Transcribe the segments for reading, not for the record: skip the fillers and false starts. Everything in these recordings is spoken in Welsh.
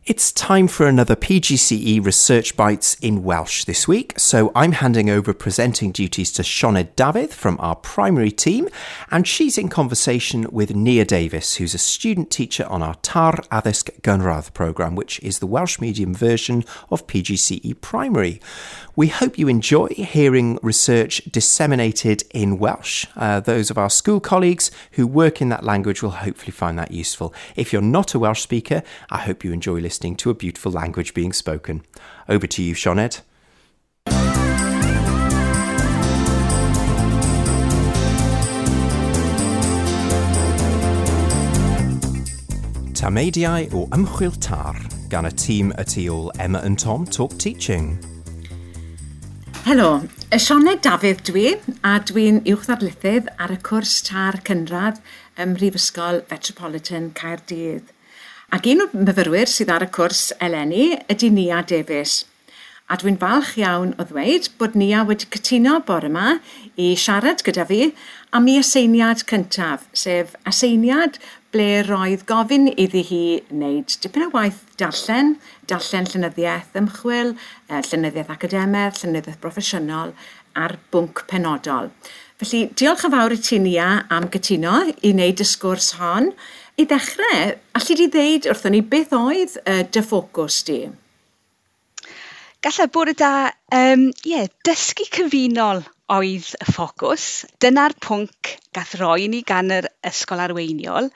It's time for another PGCE Research Bites in Welsh this week, so I'm handing over presenting duties to Sioned Dafydd from our primary team, and she's in conversation with Nia Davies, who's a student teacher on our TAR Addysg Gynradd programme, which is the Welsh medium version of PGCE Primary. We hope you enjoy hearing research disseminated in Welsh. Those of our school colleagues who work in that language will hopefully find that useful. If you're not a Welsh speaker, I hope you enjoy listening to a beautiful language being spoken. Over to you, Sioned. Tameidiau o Ymchwil TAR gan y tîm y tu ôl Emma and Tom Talk Teaching. Helo, Sioned Dafydd dwi, a dwi'n uwch ddarlithydd ar y cwrs TAR Cynradd ym Mhrifysgol Metropolitan Caerdydd. Ac un o'r myfyrwyr sydd ar y cwrs eleni ydy Nia Davies. A dwi'n falch iawn o ddweud bod Nia wedi cytuno bore yma i siarad gyda fi am ei aseiniad cyntaf, sef aseiniad ble roedd gofyn iddi hi wneud dipyn o waith darllen, darllen llenyddiaeth ymchwil, llenyddiaeth academaidd, llenyddiaeth broffesiynol ar bwnc penodol. Felly, diolch yn fawr i ti, Nia, am gytuno i wneud y sgwrs hon. I ddechrau, alli di ddeud wrthon ni beth oedd dy ffocws di? Gallai bore da, dysgu cyfunol oedd y ffocws. Dyna'r pwnc gath roi ni gan yr ysgol arweiniol.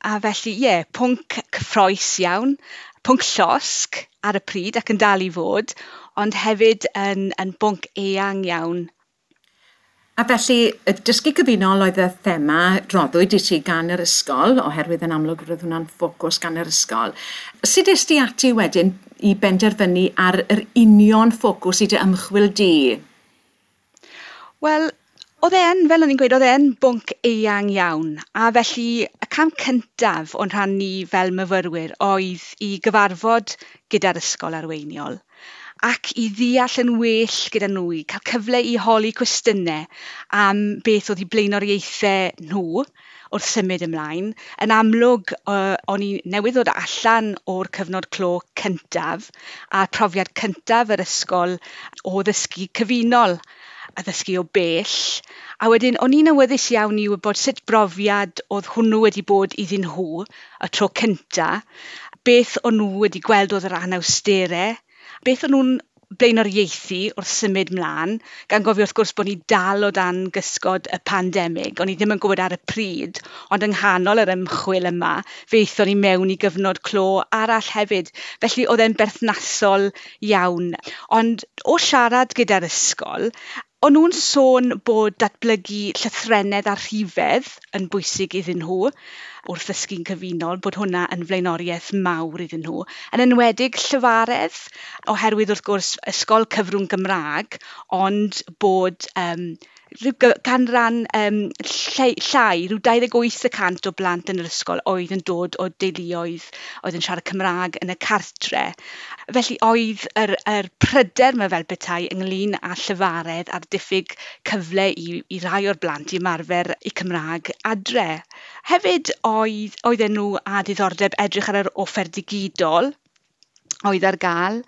A felly, pwnc cyffrous iawn, pwnc llosg ar y pryd ac yn dal i fod, ond hefyd yn bwnc eang iawn. A felly, y dysgu cyfunol oedd y thema roddwyd i ti gan yr ysgol, oherwydd yn amlwg roedd hwnna'n ffocws gan yr ysgol. Sut es di ati wedyn i benderfynu ar yr union ffocws i dy ymchwil di? Wel, oedd e yn, fel o'n i'n gweud, oedd e yn bwnc eang iawn. A felly, y cam cyntaf o'n rhan ni fel myfyrwyr oedd i gyfarfod gyda'r ysgol arweiniol ac i ddeall yn well gyda nhw, i cael cyfle i holi cwestiynau am beth oedd eu blaenoriaethau nhw wrth symud ymlaen. Yn amlwg, o'n i newydd ddod allan o'r cyfnod clo cyntaf a profiad cyntaf yr ysgol o ddysgu cyfunol a ddysgu o bell. A wedyn, o'n i'n awyddus iawn i wybod sut brofiad oedd hwnnw wedi bod iddyn nhw y tro cynta, beth o'n nhw wedi gweld oedd yr anawsterau, beth o'n nhw'n blaenoriaethu wrth symud mlaen, gan gofio wrth gwrs bod ni dal o dan gysgod y pandemig. O'n i ddim yn gwybod ar y pryd, ond yng nghanol yr ymchwil yma, fe aethon ni mewn i gyfnod clo arall hefyd. Felly oedd e'n berthnasol iawn. Ond o siarad gyda'r ysgol, o'n nhw'n sôn bod datblygu llythrennedd a rhifedd yn bwysig iddyn nhw wrth ddysgu'n cyfunol, bod hwnna yn flaenoriaeth mawr iddyn nhw. Yn enwedig llyfaredd, oherwydd wrth gwrs ysgol cyfrwng Gymraeg, ond bod rhyw canran llai, rhyw 28% o blant yn yr ysgol oedd yn dod o deuluoedd oedd yn siarad Cymraeg yn y cartre. Felly oedd yr pryder yma fel petai ynglyn â llyfaredd a'r diffyg cyfle i rai o'r blant i ymarfer eu Cymraeg adre. Hefyd oedden nhw â diddordeb edrych ar yr offer digidol oedd ar gael.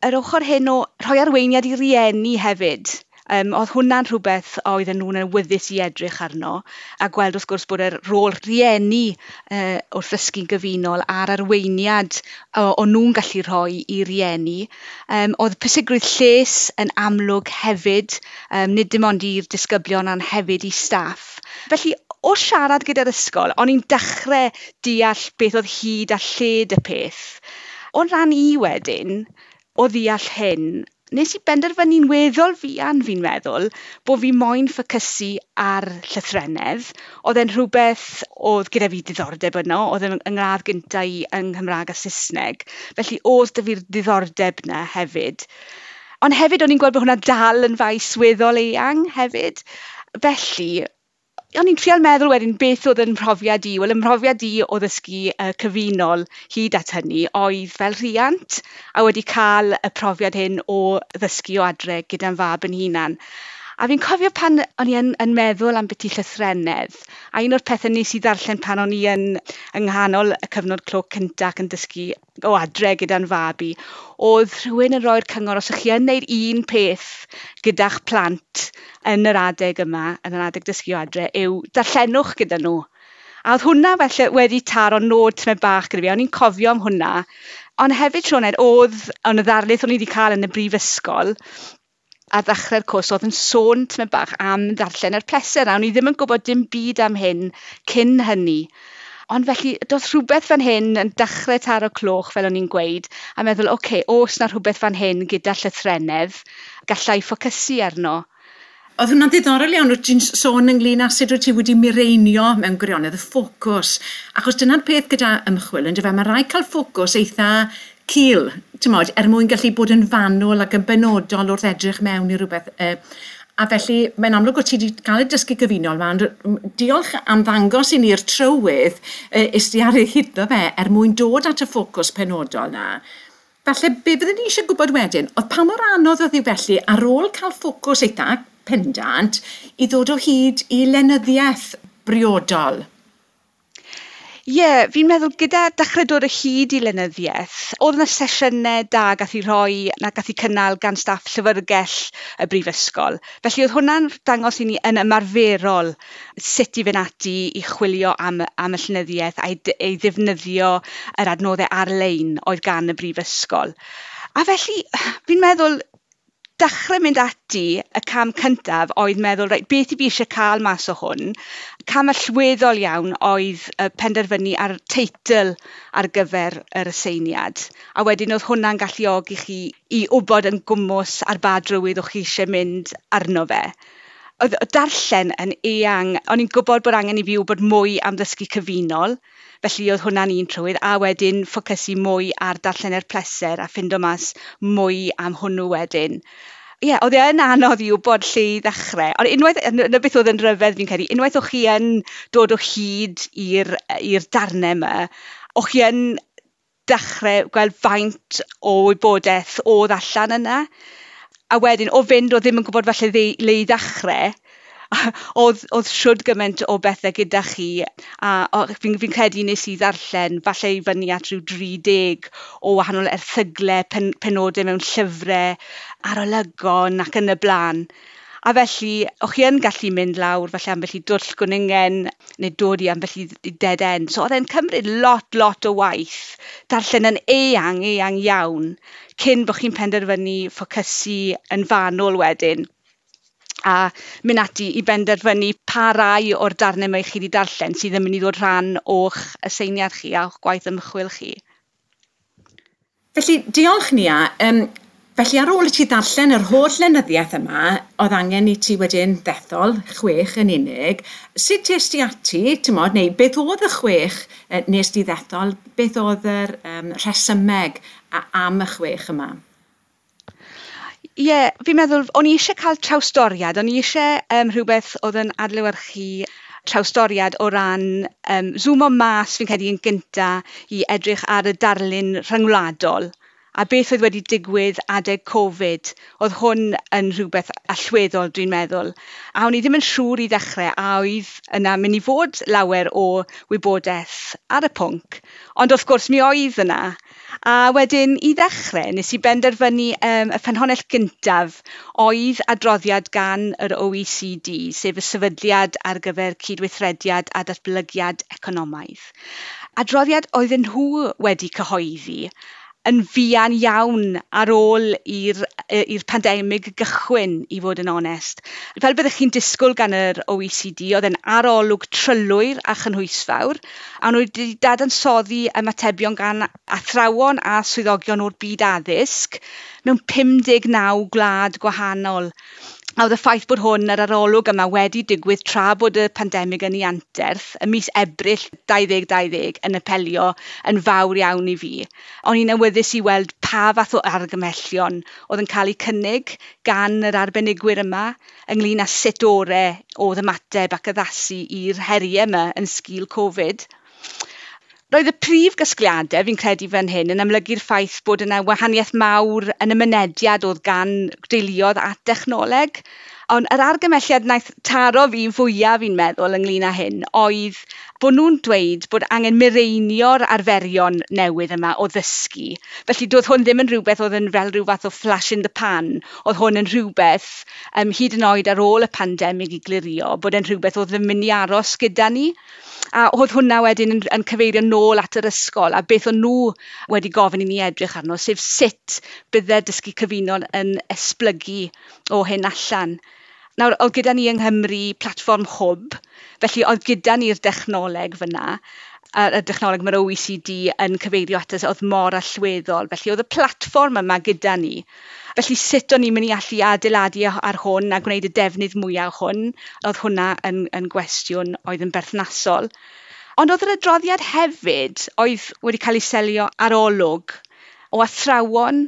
Yr ochr hyn o rhoi arweiniad i rieni hefyd. Oedd hwnna'n rhywbeth oedden nhw'n awyddus i edrych arno, a gweld wrth gwrs bod yr rôl rieni wrth ddysgu'n gyfunol a'r arweiniad o'n nhw'n gallu rhoi i rieni. Oedd pwysigrwydd lles yn amlwg hefyd, nid dim ond i'r disgyblion ond hefyd i staff. Felly, o siarad gyda'r ysgol, o'n i'n dechrau deall beth oedd hyd a lled y peth. O'n rhan i wedyn, o ddeall hyn, nes i benderfynu'n weddol fuan, fi'n meddwl, bod fi moyn ffocysu ar llythrennedd. Oedd e'n rhywbeth oedd gyda fi diddordeb yno, oedd e'n ngradd gynta i yng Nghymraeg a Saesneg. Felly oedd 'da fi'r diddordeb 'na hefyd. Ond hefyd o'n i'n gweld bod hwnna dal yn faes weddol eang hefyd. Felly, o'n i'n trial meddwl wedyn beth oedd yn mhrofiad i. Wel, 'y mhrofiad i o ddysgu cyfunol hyd at hynny oedd fel rhiant a wedi cael y profiad hyn o ddysgu o adre gyda'n fab yn hunan. A fi'n cofio pan o'n i yn meddwl am byti llythrennedd, a un o'r pethau nes i ddarllen pan o'n i yng nghanol y cyfnod clo cyntaf ac yn dysgu o adre gyda'n fab i, oedd rhywun yn rhoi'r cyngor os ych chi yn neud un peth gyda'ch plant yn yr adeg yma, yn yr adeg dysgu o adre, yw darllenwch gyda nhw. A oedd hwnna felly wedi taro nod tymed bach gyda fi, o'n i'n cofio am hwnna. Ond hefyd, Sioned, oedd yn y ddarlith o'n i wedi cael yn y brifysgol, ar ddechrau'r cwrs oedd yn sôn tymed bach am ddarllen yr pleser, a o'n i ddim yn gwybod dim byd am hyn cyn hynny. Ond felly, doedd rhywbeth fan hyn yn dechrau taro cloch, fel o'n i'n gweud, a meddwl, oce, oes na rhywbeth fan hyn gyda llythrennedd, gallai ffocysu arno. Oedd hwnna'n ddiddorol iawn, wyt ti'n sôn ynglyn â sut wyt ti wedi mireinio mewn gwirionedd y ffocws. Achos dyna'r peth gyda ymchwil, yndyfe, mae rhaid cael ffocws eitha cul, ti'mod, er mwyn gallu bod yn fanwl ac yn benodol wrth edrych mewn i rhywbeth. A felly, mae'n amlwg bod ti wedi cael y dysgu gyfunol yma, ond diolch am ddangos i ni'r trywydd is di ar ei hyddo fe er mwyn dod at y ffocws penodol na. Falle, be fyddwn ni eisiau gwybod wedyn, oedd pa mor anodd oedd hi felly ar ôl cael ffocws eitha pendant i ddod o hyd i lenyddiaeth briodol? Ie, yeah, fi'n meddwl gyda dechrau dod o hyd i lenyddiaeth, oedd yna sesiynau da gath i rhoi, na gath i cynnal gan staff llyfrgell y brifysgol. Felly oedd hwnna'n dangos i ni yn ymarferol sut i fynd ati i chwilio am y llenyddiaeth a'i ei ddefnyddio yr adnoddau ar-lein oedd gan y brifysgol. A felly, fi'n meddwl, dechrau mynd ati y cam cyntaf oedd meddwl, reit, beth i fi eisiau cael mas o hwn? Cam allweddol iawn oedd penderfynu ar teitl ar gyfer yr aseiniad. A wedyn oedd hwnna'n galluogi chi i wybod yn gwmws ar ba drywydd o'ch chi eisiau mynd arno fe. Oedd darllen yn eang, o'n i'n gwybod bod angen i fi wybod mwy am ddysgu cyfunol, felly oedd hwnna'n un trywydd, a wedyn ffocysu mwy ar darllen er pleser a ffindo mas mwy am hwnnw wedyn. Ie, yeah, oedd e yn anodd i wybod lle i ddechrau. Ond unwaith, yna beth oedd yn rhyfedd fi'n credu, unwaith o'ch chi yn dod o hyd i'r darnau yma, o'ch chi yn dechrau gweld faint o wybodaeth oedd allan yna. A wedyn, o fynd o ddim yn gwybod falle le i ddechrau, oedd siwd gymaint o bethau gyda chi, a fi'n credu nes i ddarllen falle i fyny at rhyw 30 o wahanol erthyglau, penodau mewn llyfrau, arolygon ac yn y blaen. A felly, o'ch chi yn gallu mynd lawr falle ambell i dwll gwningen neu dod i ambell i dead end. So oedd e'n cymryd lot o waith, darllen yn eang iawn, cyn bod chi'n penderfynu ffocysu yn fanwl wedyn. A mynd ati i benderfynu pa rai o'r darnau mae chi wedi darllen sydd yn mynd i ddod rhan o'ch aseiniad chi a o'ch gwaith ymchwil chi. Felly, diolch Nia. Felly ar ôl i ti ddarllen yr holl lenyddiaeth yma, oedd angen i ti wedyn ddethol 6 yn unig. Sut es di ati, ti'mod, neu beth oedd y 6 nes di ddethol, beth oedd yr rhesymeg am y 6 yma? Ie, yeah, fi'n meddwl, o'n i eisiau cael trawstoriad, o'n i eisiau rhywbeth oedd yn adlewyrchu trawstoriad o ran zoomo mas, fi'n credu, yn gynta i edrych ar y darlun rhyngwladol. A beth oedd wedi digwydd adeg Covid, oedd hwn yn rhywbeth allweddol, dwi'n meddwl. A o'n i ddim yn siŵr i ddechrau a oedd yna mynd i fod lawer o wybodaeth ar y pwnc. Ond wrth gwrs mi oedd yna. A wedyn i ddechrau, nes i benderfynu y ffynhonnell gyntaf oedd adroddiad gan yr OECD, sef y Sefydliad ar gyfer Cydweithrediad a Datblygiad Economaidd. Adroddiad oedden nhw wedi cyhoeddi yn fuan iawn ar ôl i'r pandemig gychwyn, i fod yn onest. Fel byddech chi'n disgwyl gan yr OECD, oedd e'n arolwg trylwyr a chynhwysfawr, a nhw wedi dadansoddi ymatebion gan athrawon a swyddogion o'r byd addysg mewn 59 gwlad gwahanol. A oedd y ffaith bod hwn, yr arolwg yma, wedi digwydd tra bod y pandemig yn ei anterth, ym mis Ebrill 2020, yn apelio yn fawr iawn i fi. O'n i'n awyddus i weld pa fath o argymhellion oedd yn cael eu cynnig gan yr arbenigwyr yma ynglyn â sut orau oedd ymateb ac addasu i'r heriau yma yn sgil Covid. Roedd y prif gasgliadau, fi'n credu fan hyn, yn amlygu'r ffaith bod yna wahaniaeth mawr yn y mynediad oedd gan deuluoedd at dechnoleg. Ond yr argymelliad wnaeth taro fi fwyaf fi'n meddwl ynglyn â hyn oedd bod nhw'n dweud bod angen mireinio'r arferion newydd yma o ddysgu. Felly doedd hwn ddim yn rhywbeth oedd yn fel rhyw fath o flash in the pan. Oedd hwn yn rhywbeth hyd yn oed ar ôl y pandemig i glirio, bod e'n rhywbeth oedd yn mynd i aros gyda ni. A oedd hwnna wedyn yn cyfeirio nôl at yr ysgol a beth o'n nhw wedi gofyn i ni edrych arno, sef sut bydde dysgu cyfunol yn esblygu o hyn allan. Nawr, oedd gyda ni yng Nghymru platfform Hwb, felly oedd gyda ni'r dechnoleg fyna, y dechnoleg mae'r OECD yn cyfeirio ato oedd mor allweddol. Felly oedd y platfform yma gyda ni. Felly sut o'n i'n mynd i allu adeiladu ar hwn a gwneud y defnydd mwyaf o hwn, oedd hwnna yn gwestiwn oedd yn berthnasol. Ond oedd yr adroddiad hefyd oedd wedi cael ei selio ar olwg o athrawon,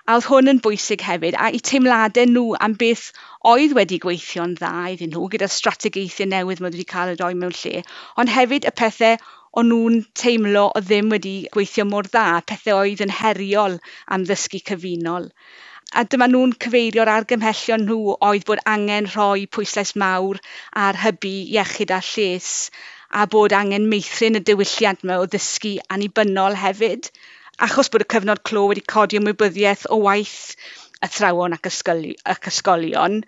a oedd hwn yn bwysig hefyd, a eu teimladau nhw am beth oedd wedi gweithio'n dda iddyn nhw, gyda'r strategaethau newydd mae wedi cael eu rhoi mewn lle, ond hefyd y pethau o'n nhw'n teimlo oedd ddim wedi gweithio mor dda, pethau oedd yn heriol am ddysgu cyfunol. A dyma nhw'n cyfeirio'r argymhellion nhw oedd bod angen rhoi pwyslais mawr ar hybu iechyd a lles, a bod angen meithrin y diwylliant yma o ddysgu annibynnol hefyd. Achos bod y cyfnod clo wedi codi ymwybyddiaeth o waith athrawon ac ysgolion,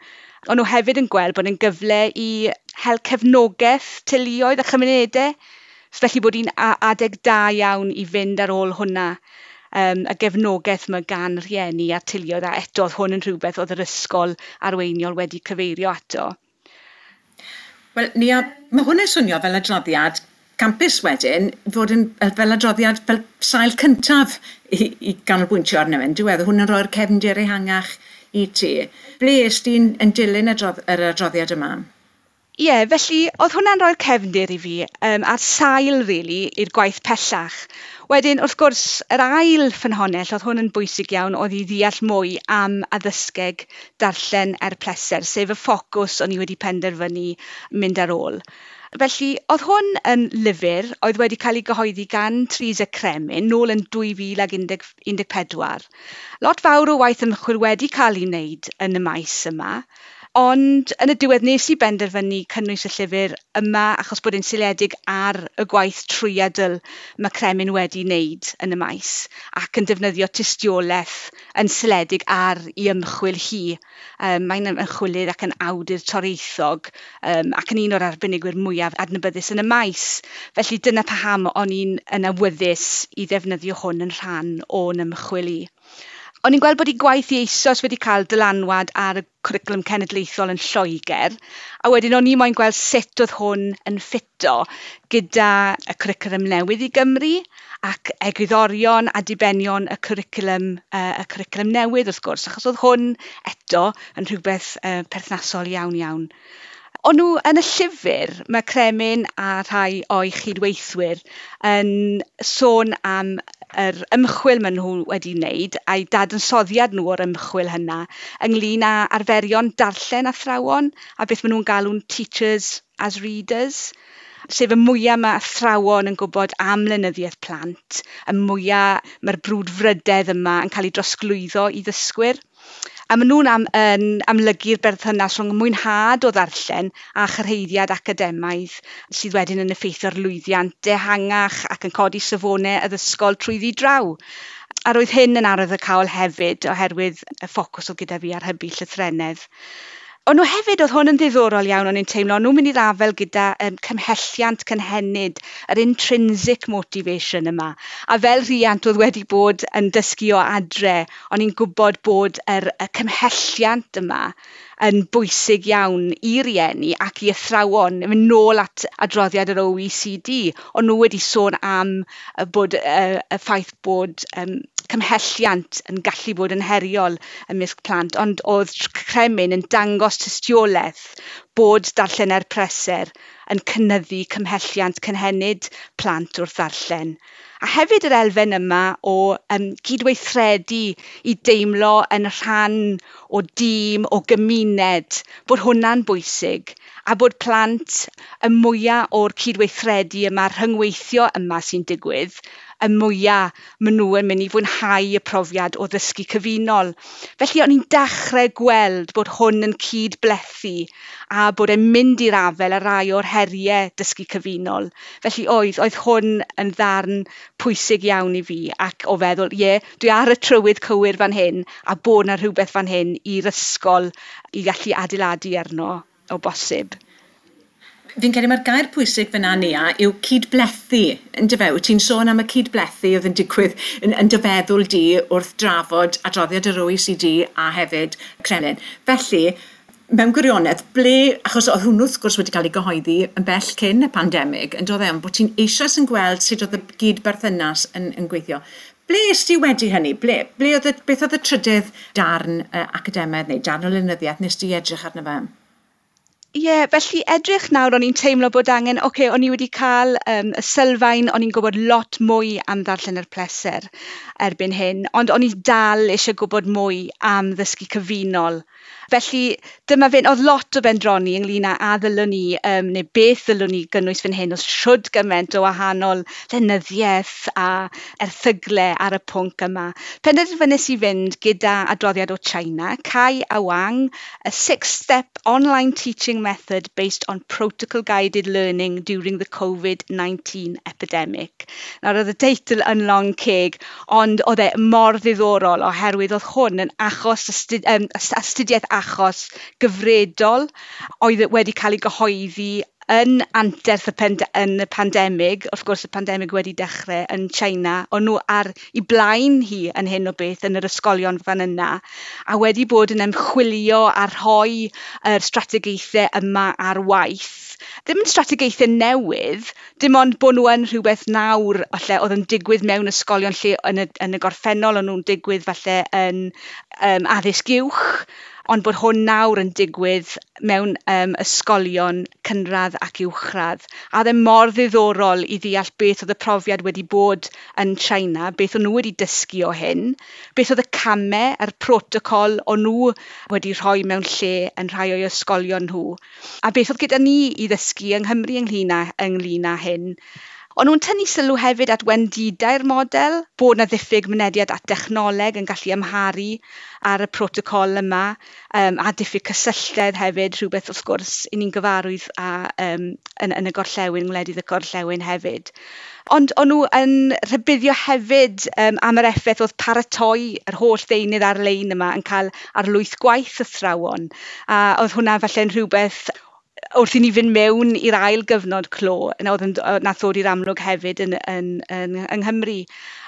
o'n nhw hefyd yn gweld bod yn gyfle i hel cefnogaeth teuluoedd a chymunedau. Felly bod hi'n adeg da iawn i fynd ar ôl hwnna, y gefnogaeth mae gan rhieni a teuluoedd, a eto oedd hwn yn rhywbeth oedd yr ysgol arweiniol wedi cyfeirio ato. Wel, Nia, mae hwn yn swnio fel adroddiad campus wedyn, fod yn fel adroddiad fel sail cyntaf i ganolbwyntio arno fe. Diwedd, hwn yn rhoi'r cefndir ehangach i ti. Ble est ti'n yn dilyn yr adroddiad yma? Ie, yeah, felly oedd hwnna'n rhoi'r cefndir i fi a'r sail, really, i'r gwaith pellach. Wedyn, wrth gwrs, yr ail ffynhonnell, oedd hwn yn bwysig iawn, oedd i ddeall mwy am addysgeg darllen er pleser, sef y ffocws o'n i wedi penderfynu mynd ar ôl. Felly, oedd hwn yn lyfr oedd wedi cael ei gyhoeddi gan Teresa Cremin nôl yn 2014. Lot fawr o waith ymchwil wedi cael ei wneud yn y maes yma, ond yn y diwedd nes i benderfynu cynnwys y llyfr yma achos bod e'n seiliedig ar y gwaith trwyadl mae Cremin wedi wneud yn y maes ac yn defnyddio tystiolaeth yn seiliedig ar ei ymchwil hi. Mae'n ymchwilydd ac yn awdur toreithog ac yn un o'r arbenigwyr mwyaf adnabyddus yn y maes. Felly dyna paham o'n i'n yn awyddus i ddefnyddio hwn yn rhan o'n ymchwil i. O'n i'n gweld bod ei gwaith i eisoes wedi cael dylanwad ar y cwricwlwm cenedlaethol yn Lloegr, a wedyn o'n i moyn gweld sut oedd hwn yn ffito gyda y cwricwlwm newydd i Gymru ac egwyddorion a dibenion y cwricwlwm newydd wrth gwrs, achos oedd hwn eto yn rhywbeth perthnasol iawn iawn. O'n nhw yn y llyfr, mae Cremin a rhai o'i chydweithwyr yn sôn am yr ymchwil maen nhw wedi wneud a'i dadansoddiad nhw o'r ymchwil hynna ynglyn â arferion darllen athrawon a beth maen nhw'n galw'n teachers as readers, sef y mwyaf mae athrawon yn gwybod am lenyddiaeth plant, y mwyaf mae'r brwdfrydedd yma yn cael ei drosglwyddo i ddysgwyr. A maen nhw'n yn amlygu'r berthynas rhwng mwynhad o ddarllen a chyrhaeddiad academaidd sydd wedyn yn effeithio ar lwyddiant ehangach ac yn codi safonau addysgol trwyddi draw. A roedd hyn yn arwyddocaol hefyd oherwydd y ffocws oedd gyda fi ar hybu llythrennedd. Ond nhw hefyd, oedd hwn yn ddiddorol iawn, o'n i'n teimlo, o'n nhw'n mynd i'r afael gyda cymhelliant cynhenid, yr intrinsic motivation yma. A fel rhiant oedd wedi bod yn dysgu o adre, o'n i'n gwybod bod y cymhelliant yma yn bwysig iawn i rieni ac i athrawon. Mynd nôl at adroddiad yr OECD, o'n nhw wedi sôn am bod y ffaith bod cymhelliant yn gallu bod yn heriol ymysg plant, ond oedd Cremin yn dangos tystiolaeth bod darllen er pleser yn cynyddu cymhelliant cynhenid plant wrth ddarllen. A hefyd yr elfen yma o gydweithredu i deimlo yn rhan o dîm, o gymuned, bod hwnna'n bwysig, a bod plant y mwyaf o'r cydweithredu yma, rhyngweithio yma sy'n digwydd, y mwyaf maen nhw yn mynd i fwynhau y profiad o ddysgu cyfunol. Felly o'n i'n dechrau gweld bod hwn yn cyd-blethu a bod e'n mynd i'r afael â rai o'r heriau dysgu cyfunol. Felly oedd hwn yn ddarn pwysig iawn i fi ac o feddwl, ie, dwi ar y trywydd cywir fan hyn a bod 'na rhywbeth fan hyn i'r ysgol i gallu adeiladu arno o bosib. Fi'n credu mae'r gair pwysig fyna, Nia, yw cydblethu, yndyfe? Wyt ti'n sôn am y cydblethu oedd yn digwydd yn dy feddwl di wrth drafod adroddiad yr OECD a hefyd Kremlin. Felly, mewn gwirionedd, ble, achos oedd hwnnw wrth gwrs wedi cael ei gyhoeddi yn bell cyn y pandemig, yn dod e, ond bod ti'n eisoes yn gweld sut oedd y gyd-berthynas yn gweithio. Ble est ti wedi hynny? Beth oedd y trydydd darn academaidd neu darn o lenyddiaeth nes ti edrych arno fe? Ie, yeah, felly edrych nawr, o'n i'n teimlo bod angen, oce, o'n i wedi cael y sylfaen, o'n i'n gwybod lot mwy am ddarllen yr pleser erbyn hyn, ond o'n i dal eisiau gwybod mwy am ddysgu cyfunol. Felly dyma fe'n, oedd lot o bendroni ynglyn â a ddylwn ni, neu beth ddylwn ni gynnwys fan hyn, oedd shwd gymaint o wahanol lenyddiaeth a erthygle ar y pwnc yma. Penderfynais i fynd gyda adroddiad o China, Cai a Wang, a six-step online teaching method based on protocol-guided learning during the COVID-19 epidemic. Nawr oedd y teitl yn long ceg, ond oedd e mor ddiddorol oherwydd oedd hwn yn achos astudiaeth achos gyfredol oedd wedi cael ei gyhoeddi yn anterth yn y pandemig. Wrth gwrs y pandemig wedi dechrau yn China, o'n nhw ar i blaen hi yn hyn o beth yn yr ysgolion fan yna, a wedi bod yn ymchwilio a rhoi yr strategaethau yma ar waith. Ddim yn strategaethau newydd, dim ond bod nhw yn rhywbeth nawr falle oedd yn digwydd mewn ysgolion lle yn y gorffennol o'n nhw'n digwydd falle yn addysg uwch, ond bod hwn nawr yn digwydd mewn ysgolion cynradd ac uwchradd. A oedd e mor ddiddorol i ddeall beth oedd y profiad wedi bod yn China, beth o'n nhw wedi dysgu o hyn, beth oedd y camau a'r protocol o'n nhw wedi rhoi mewn lle yn rhai o'i ysgolion nhw, a beth oedd gyda ni i ddysgu yng Nghymru ynglyn â hyn. O'n nhw'n tynnu sylw hefyd at wendidau'r model, bod 'na ddiffyg mynediad at dechnoleg yn gallu amharu ar y protocol yma, a diffyg cysylltedd hefyd, rhywbeth wrth gwrs i ni'n gyfarwydd â, yn y gorllewin, ngwledydd y gorllewin hefyd. Ond o'n nhw yn rhybuddio hefyd am yr effaith oedd paratoi yr holl ddeunydd ar-lein yma yn cael ar lwyth gwaith athrawon. A oedd hwnna falle'n rhywbeth wrth i ni fynd mewn i'r ail gyfnod clo, oedd yn, nath ddod i'r amlwg hefyd yng Nghymru.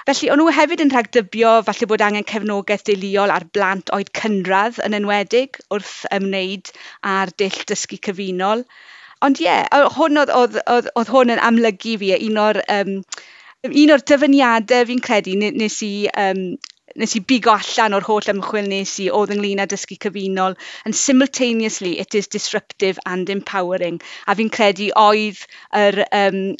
Felly, o'n nhw hefyd yn rhagdybio falle bod angen cefnogaeth deuluol ar blant oed cynradd yn enwedig wrth ymwneud â'r dull dysgu cyfunol. Ond ie, hwn oedd hwn yn amlygu fi, un o'r dyfyniadau fi'n credu nes i bigo allan o'r holl ymchwil nes i oedd ynglyn â dysgu cyfunol, and simultaneously it is disruptive and empowering. A fi'n credu oedd yr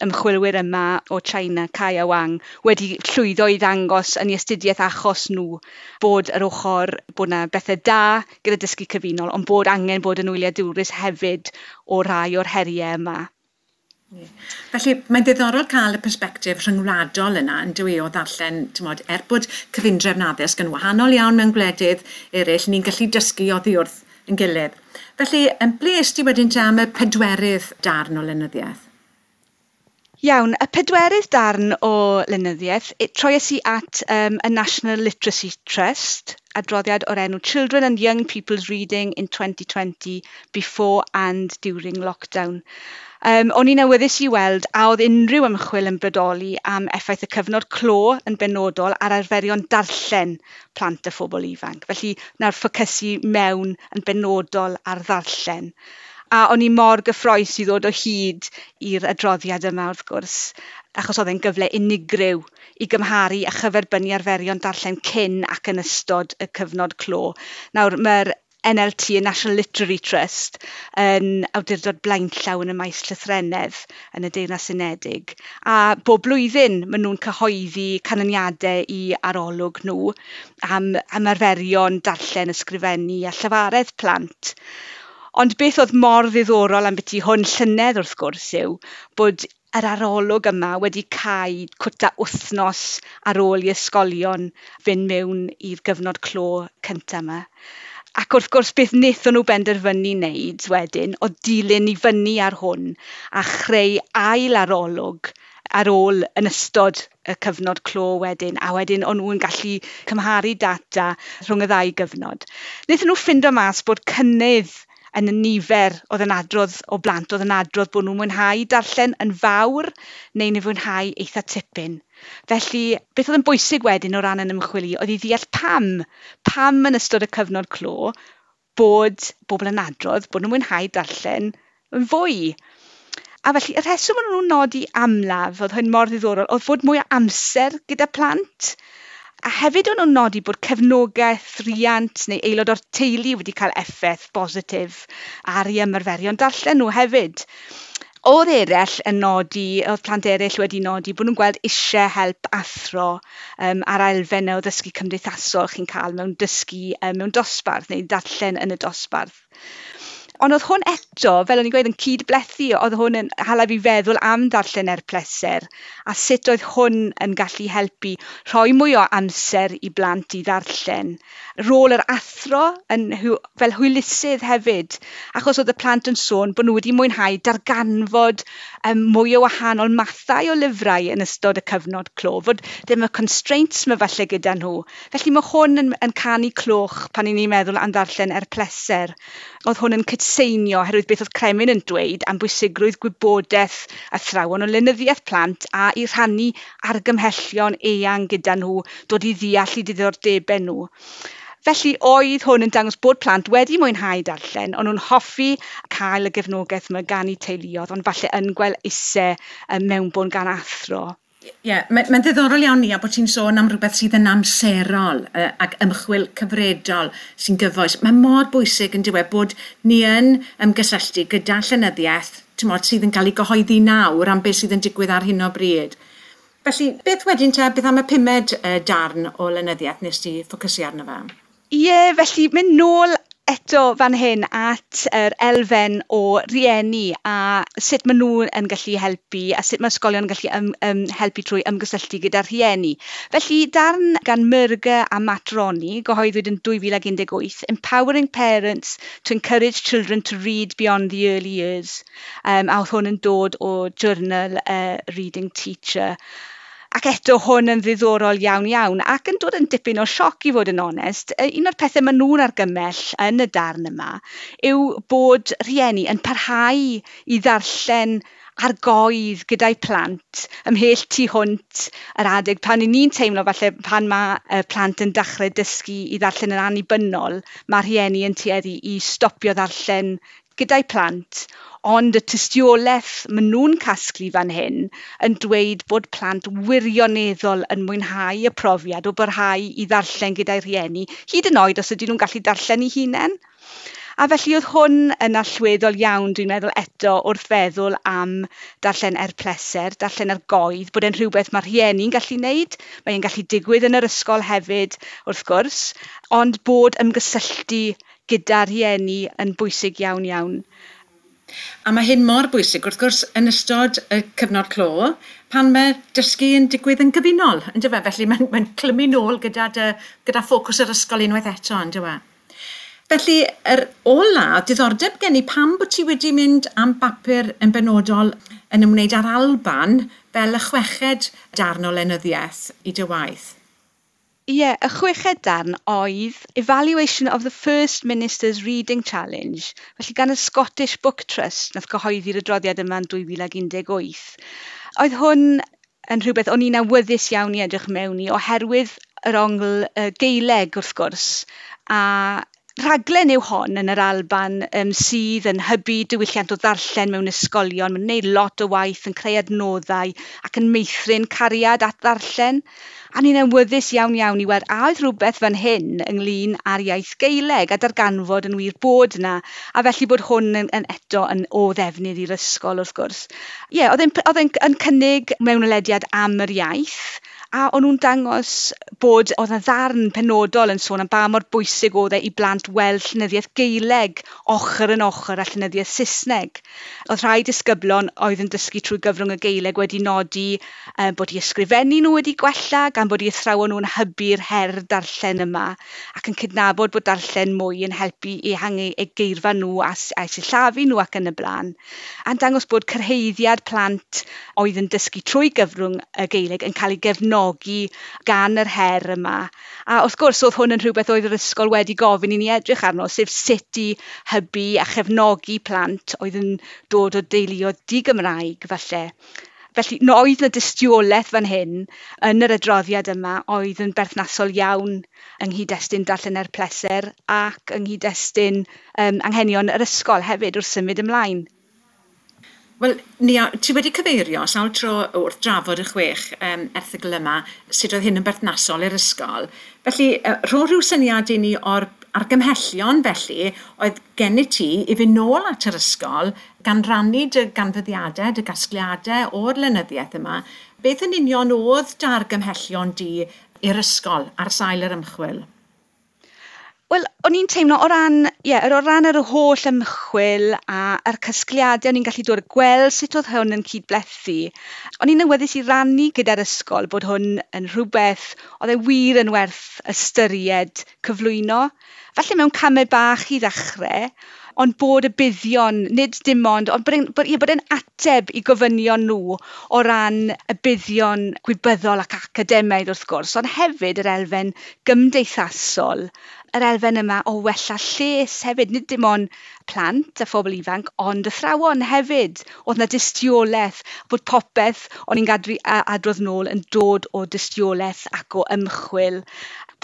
ymchwilwyr yma o China, Cai a Wang, wedi llwyddo i ddangos yn ei astudiaeth achos nhw bod yr ochr, bod 'na bethau da gyda dysgu cyfunol, ond bod angen bod yn wyliadwrus hefyd o rai o'r heriau yma. Felly, mae'n ddiddorol cael y persbectif rhyngwladol yna, yn dyw e, o ddarllen, t'mod, er bod cyfundrefn addysg yn wahanol iawn mewn gwledydd eraill, ni'n gallu dysgu oddi wrth yn gilydd. Felly, ble est ti wedyn te am y pedwerydd darn o lenyddiaeth? Iawn, y pedwerydd darn o lenyddiaeth, troies i at y National Literacy Trust, adroddiad o'r enw Children and Young People's Reading in 2020 Before and During Lockdown. O'n i'n awyddus i weld a oedd unrhyw ymchwil yn bodoli am effaith y cyfnod clo yn benodol ar arferion darllen plant a phobl ifanc. Felly, nawr ffocysu mewn yn benodol ar ddarllen. A o'n i mor gyffrous i ddod o hyd i'r adroddiad yma wrth gwrs, achos oedd e'n gyfle unigryw i gymharu a chyferbynnu arferion darllen cyn ac yn ystod y cyfnod clo. Nawr, mae'r NLT, y National Literary Trust, yn awdurdod blaenllaw yn y maes llythrennedd yn y Deyrnas Unedig. A bob blwyddyn maen nhw'n cyhoeddi canlyniadau i arolwg nhw am arferion darllen, ysgrifennu a llafaredd plant. Ond beth oedd mor ddiddorol am byti hwn llynedd wrth gwrs yw bod yr arolwg yma wedi cau cwta wythnos ar ôl i ysgolion fynd mewn i'r gyfnod clo cyntaf yma. Ac wrth gwrs, beth wnaethon nhw benderfynu wneud wedyn oedd dilyn i fyny ar hwn a chreu ail arolwg ar ôl yn ystod y cyfnod clo wedyn, a wedyn o'n nhw'n gallu cymharu data rhwng y ddau gyfnod. Wnaethon nhw ffindo mas bod cynnydd yn y nifer oedd yn adrodd o blant oedd yn adrodd bod nhw'n mwynhau darllen yn fawr neu'n ei fwynhau eitha tipyn. Felly, beth oedd yn bwysig wedyn o ran yn ymchwil i oedd i ddeall pam, pam yn ystod y cyfnod clo bod bobl yn adrodd bod nhw'n mwynhau darllen yn fwy. A felly, y rheswm o'n nhw'n nodi amlaf, oedd hyn mor ddiddorol, oedd fod mwy o amser gyda plant. A hefyd o'n nhw'n nodi bod cefnogaeth riant neu aelod o'r teulu wedi cael effaith bositif ar eu ymarferion darllen nhw hefyd. Oedd eraill yn nodi, oedd plant eraill wedi nodi bod nhw'n gweld eisiau help athro ar elfennau o ddysgu cymdeithasol chi'n cael mewn dysgu mewn dosbarth neu darllen yn y dosbarth. Ond oedd hwn eto, fel o'n i'n gweud, yn cydblethu, oedd hwn yn hala fi feddwl am ddarllen er pleser, a sut oedd hwn yn gallu helpu rhoi mwy o amser i blant i ddarllen. Rôl yr athro yn fel hwylusydd hefyd, achos oedd y plant yn sôn bod nhw wedi mwynhau darganfod mwy o wahanol mathau o lyfrau yn ystod y cyfnod clo, fod ddim y constraints yma falle gyda nhw. Felly mae hwn yn canu cloch pan 'y ni'n meddwl am ddarllen er pleser. Oedd hwn yn cydseinio oherwydd beth oedd Cremin yn dweud am bwysigrwydd gwybodaeth athrawon o lenyddiaeth plant a i rhannu argymhellion eang gyda nhw, dod i ddeall eu diddordebau nhw. Felly oedd hwn yn dangos bod plant wedi mwynhau darllen, ond nhw'n hoffi cael y gefnogaeth yma gan eu teuluoedd, ond falle yn gweld eisiau mewnbwn gan athro. Ie, yeah, mae'n ddiddorol iawn ni a bod ti'n sôn am rhywbeth sydd yn amserol ac ymchwil cyfredol sy'n gyfoes. Mae mor bwysig yn diwedd bod ni yn ymgysylltu gyda llenyddiaeth, ti'mod, sydd yn cael ei gyhoeddi nawr am beth sydd yn digwydd ar hyn o bryd. Felly, beth wedyn te, beth am y pumed darn o lenyddiaeth nes ti ffocysu arno fe? Ie, yeah, felly mynd nôl eto fan hyn at yr elfen o rieni a sut maen nhw yn gallu helpu a sut mae ysgolion yn gallu helpu trwy ymgysylltu gyda rhieni. Felly darn gan Murger a Matt Roney, gyhoeddwyd yn 2018, Empowering Parents to Encourage Children to Read Beyond the Early Years. A oedd hwn yn dod o journal Reading Teacher. Ac eto hwn yn ddiddorol iawn iawn ac yn dod yn dipyn o sioc i fod yn onest. Un o'r pethau maen nhw'n argymell yn y darn yma yw bod rhieni yn parhau i ddarllen ar goedd gyda'i plant ymhell tu hwnt yr adeg pan 'y ni'n teimlo falle pan mae plant yn dechrau dysgu i ddarllen yn annibynnol, mae rhieni yn tueddu i stopio ddarllen gyda'i plant, ond y tystiolaeth maen nhw'n casglu fan hyn yn dweud bod plant wirioneddol yn mwynhau y profiad o barhau i ddarllen gyda'i rhieni, hyd yn oed os ydyn nhw'n gallu darllen eu hunain. A felly oedd hwn yn allweddol iawn, dwi'n meddwl eto, wrth feddwl am darllen er pleser, darllen ar goedd, bod e'n rhywbeth mae rhieni'n gallu wneud, mae'n gallu digwydd yn yr ysgol hefyd, wrth gwrs, ond bod ymgysylltu gyda rhieni yn bwysig iawn iawn. A mae hyn mor bwysig, wrth gwrs, yn ystod y cyfnod clo, pan mae dysgu yn digwydd yn gyfunol, yn dyfe? Felly mae'n clymu nôl gyda ffocws yr ysgol unwaith eto, yn dyfe? Felly, yr ola, diddordeb gen i pam bod ti wedi mynd am bapur yn benodol yn ymwneud â'r Alban fel y chweched darn o lenyddiaeth i dy waith. Ie, yeah, y chweched darn oedd Evaluation of the First Minister's Reading Challenge, felly gan y Scottish Book Trust, nath gyhoeddi'r adroddiad yma yn 2018. Oedd hwn yn rhywbeth o'n i'n awyddus iawn i edrych mewn i, oherwydd yr ongl Gaeleg wrth gwrs, a rhaglen yw hon yn yr Alban sydd yn hybu diwylliant o ddarllen mewn ysgolion. Mae'n gwneud lot o waith yn creu adnoddau ac yn meithrin cariad at ddarllen. A ni'n awyddus iawn iawn i weld a oedd rhywbeth fan hyn ynglyn â'r iaith Gaeleg a darganfod yn wir bod yna, a felly bod hwn yn eto yn o ddefnydd i'r ysgol wrth gwrs. Ie, yeah, oedd e'n cynnig mewnwelediad am yr iaith, A o'n nhw'n dangos bod oedd 'na ddarn penodol yn sôn am ba mor bwysig oedd e i blant weld llenyddiaeth Gaeleg ochr yn ochr â llenyddiaeth Saesneg. Oedd rhai disgyblion oedd yn dysgu trwy gyfrwng y Gaeleg wedi nodi bod eu ysgrifennu nhw wedi gwella, gan bod eu athrawon nhw'n hybu'r her darllen yma, ac yn cydnabod bod darllen mwy yn helpu i ehangu eu geirfa nhw a'u sillafu nhw ac yn y blaen. A'n dangos bod cyrhaeddiad plant oedd yn dysgu trwy gyfrwng y Gaeleg yn cael ei gefnogi gan yr her yma. A wrth gwrs, oedd hwn yn rhywbeth oedd yr ysgol wedi gofyn i ni edrych arno, sef sut i hybu a chefnogi plant oedd yn dod o deuluoedd di-Gymraeg falle. Felly, no, oedd 'na dystiolaeth fan hyn yn yr adroddiad yma oedd yn berthnasol iawn yng nghyd-destun darllen er pleser ac yng nghyd-destun anghenion yr ysgol hefyd wrth symud ymlaen. Wel, Nia, ti wedi cyfeirio sawl tro wrth drafod y 6 erthygl yma, sut oedd hyn yn berthnasol i'r ysgol. Felly, rho rhyw syniad i ni o'r argymhellion felly oedd gennyt ti i fynd nôl at yr ysgol gan rannu dy ganfyddiadau, dy gasgliadau o'r lenyddiaeth yma. Beth yn union oedd dy argymhellion di i'r ysgol ar sail yr ymchwil? Wel, o'n i'n teimlo o ran, o ran yr holl ymchwil a'r casgliadau o'n i'n gallu dod a gweld sut oedd hwn yn cydblethu. O'n i'n awyddus i rannu gyda'r ysgol bod hwn yn rhywbeth oedd e wir yn werth ystyried cyflwyno. Falle mewn camau bach i ddechrau, ond bod y buddion, nid dim ond, ond bod e'n ateb i gofynion nhw o ran y buddion gwybyddol ac academaidd wrth gwrs, ond hefyd yr elfen gymdeithasol, yr elfen yma o wella lles hefyd, nid dim ond plant a phobl ifanc, ond athrawon hefyd. Oedd 'na dystiolaeth bod popeth o'n i'n gadw adrodd nôl yn dod o dystiolaeth ac o ymchwil,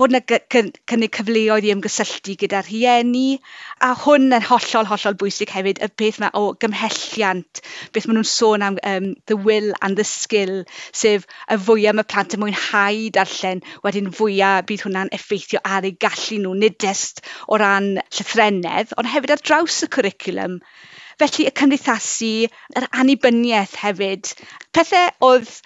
bod 'na cynnig cyfleoedd i ymgysylltu gyda rhieni, a hwn yn hollol, hollol bwysig hefyd, y peth yma o gymhelliant, beth maen nhw'n sôn am the will and the skill, sef y fwyaf mae plant yn mwynhau darllen, wedyn fwyaf bydd hwnna'n effeithio ar eu gallu nhw, nid jyst o ran llythrennedd, ond hefyd ar draws y cwricwlwm. Felly y cymdeithasu, yr annibyniaeth hefyd, pethau oedd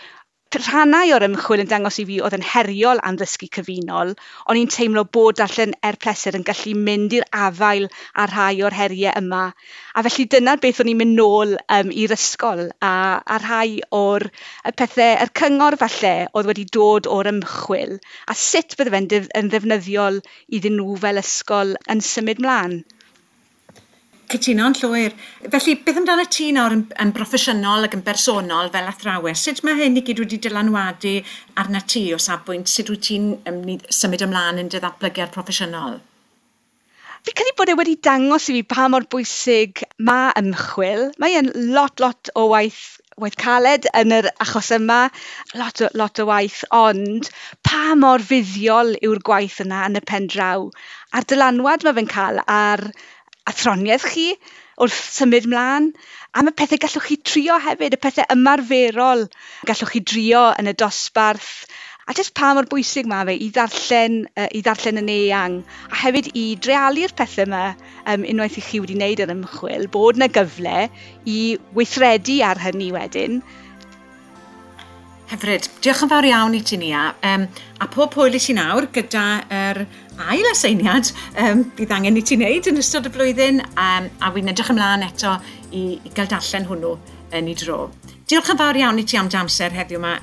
rhannau o'r ymchwil yn dangos i fi oedd yn heriol am ddysgu cyfunol, o'n i'n teimlo bod darllen er pleser yn gallu mynd i'r afael â rhai o'r heriau yma. A felly dyna beth o'n i'n mynd nôl i'r ysgol a rhai o'r y pethau, yr cyngor falle oedd wedi dod o'r ymchwil, a sut bydde fe'n yn ddefnyddiol iddyn nhw fel ysgol yn symud mlaen. Cytuno'n llwyr. Felly, beth amdano ti nawr yn broffesiynol ac yn bersonol fel athrawes? Sut mae hyn i gyd wedi dylanwadu arna ti o safbwynt? Sut wyt ti'n symud ymlaen yn dy ddatblygiad proffesiynol? Fi credu bod e wedi dangos i fi pa mor bwysig mae ymchwil. Mae e'n lot o waith caled yn yr achos yma, lot o waith, ond pa mor fuddiol yw'r gwaith yna yn y pen draw. A'r dylanwad mae fe'n cael ar athroniaeth chi wrth symud mlaen, a mae pethau gallwch chi trio hefyd, y pethau ymarferol gallwch chi drio yn y dosbarth, a jyst pa mor bwysig mae fe i ddarllen yn eang, a hefyd i dreialu'r pethau yma unwaith i chi wedi wneud yr ymchwil, bod yna gyfle i weithredu ar hynny wedyn. Hyfryd. Diolch yn fawr iawn i ti, Nia. A pob hwyl i ti nawr gyda yr ail aseiniad bydd angen i ti wneud yn ystod y flwyddyn, a wy'n edrych ymlaen eto i gael darllen hwnnw yn ei dro. Diolch yn fawr iawn i ti am dy amser heddiw yma,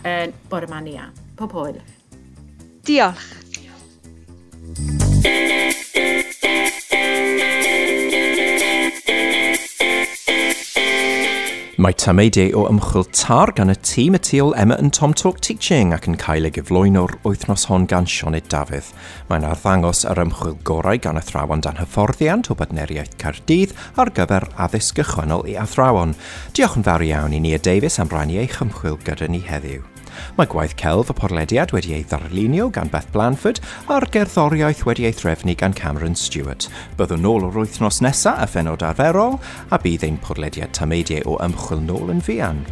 bore yma, Nia. Pob hwyl. Diolch. Mae tameidiau o ymchwil TAR gan y tîm y tu ôl Emma and Tom Talk Teaching ac yn cael ei gyflwyno'r wythnos hon gan Sioned Dafydd. Mae'n arddangos yr ymchwil gorau gan athrawon dan hyfforddiant o Bartneriaeth Caerdydd ar gyfer addysg gychwynnol i athrawon. Diolch yn fawr iawn i Nia Davies am rannu eich ymchwil gyda ni heddiw. Mae gwaith celf y podlediad wedi ei ddarlunio gan Beth Blanford a'r gerddoriaeth wedi ei threfnu gan Cameron Stewart. Byddwn nôl o'r wythnos nesaf a phenod arferol, a bydd ein podlediad tameidiau o ymchwil nôl yn fuan.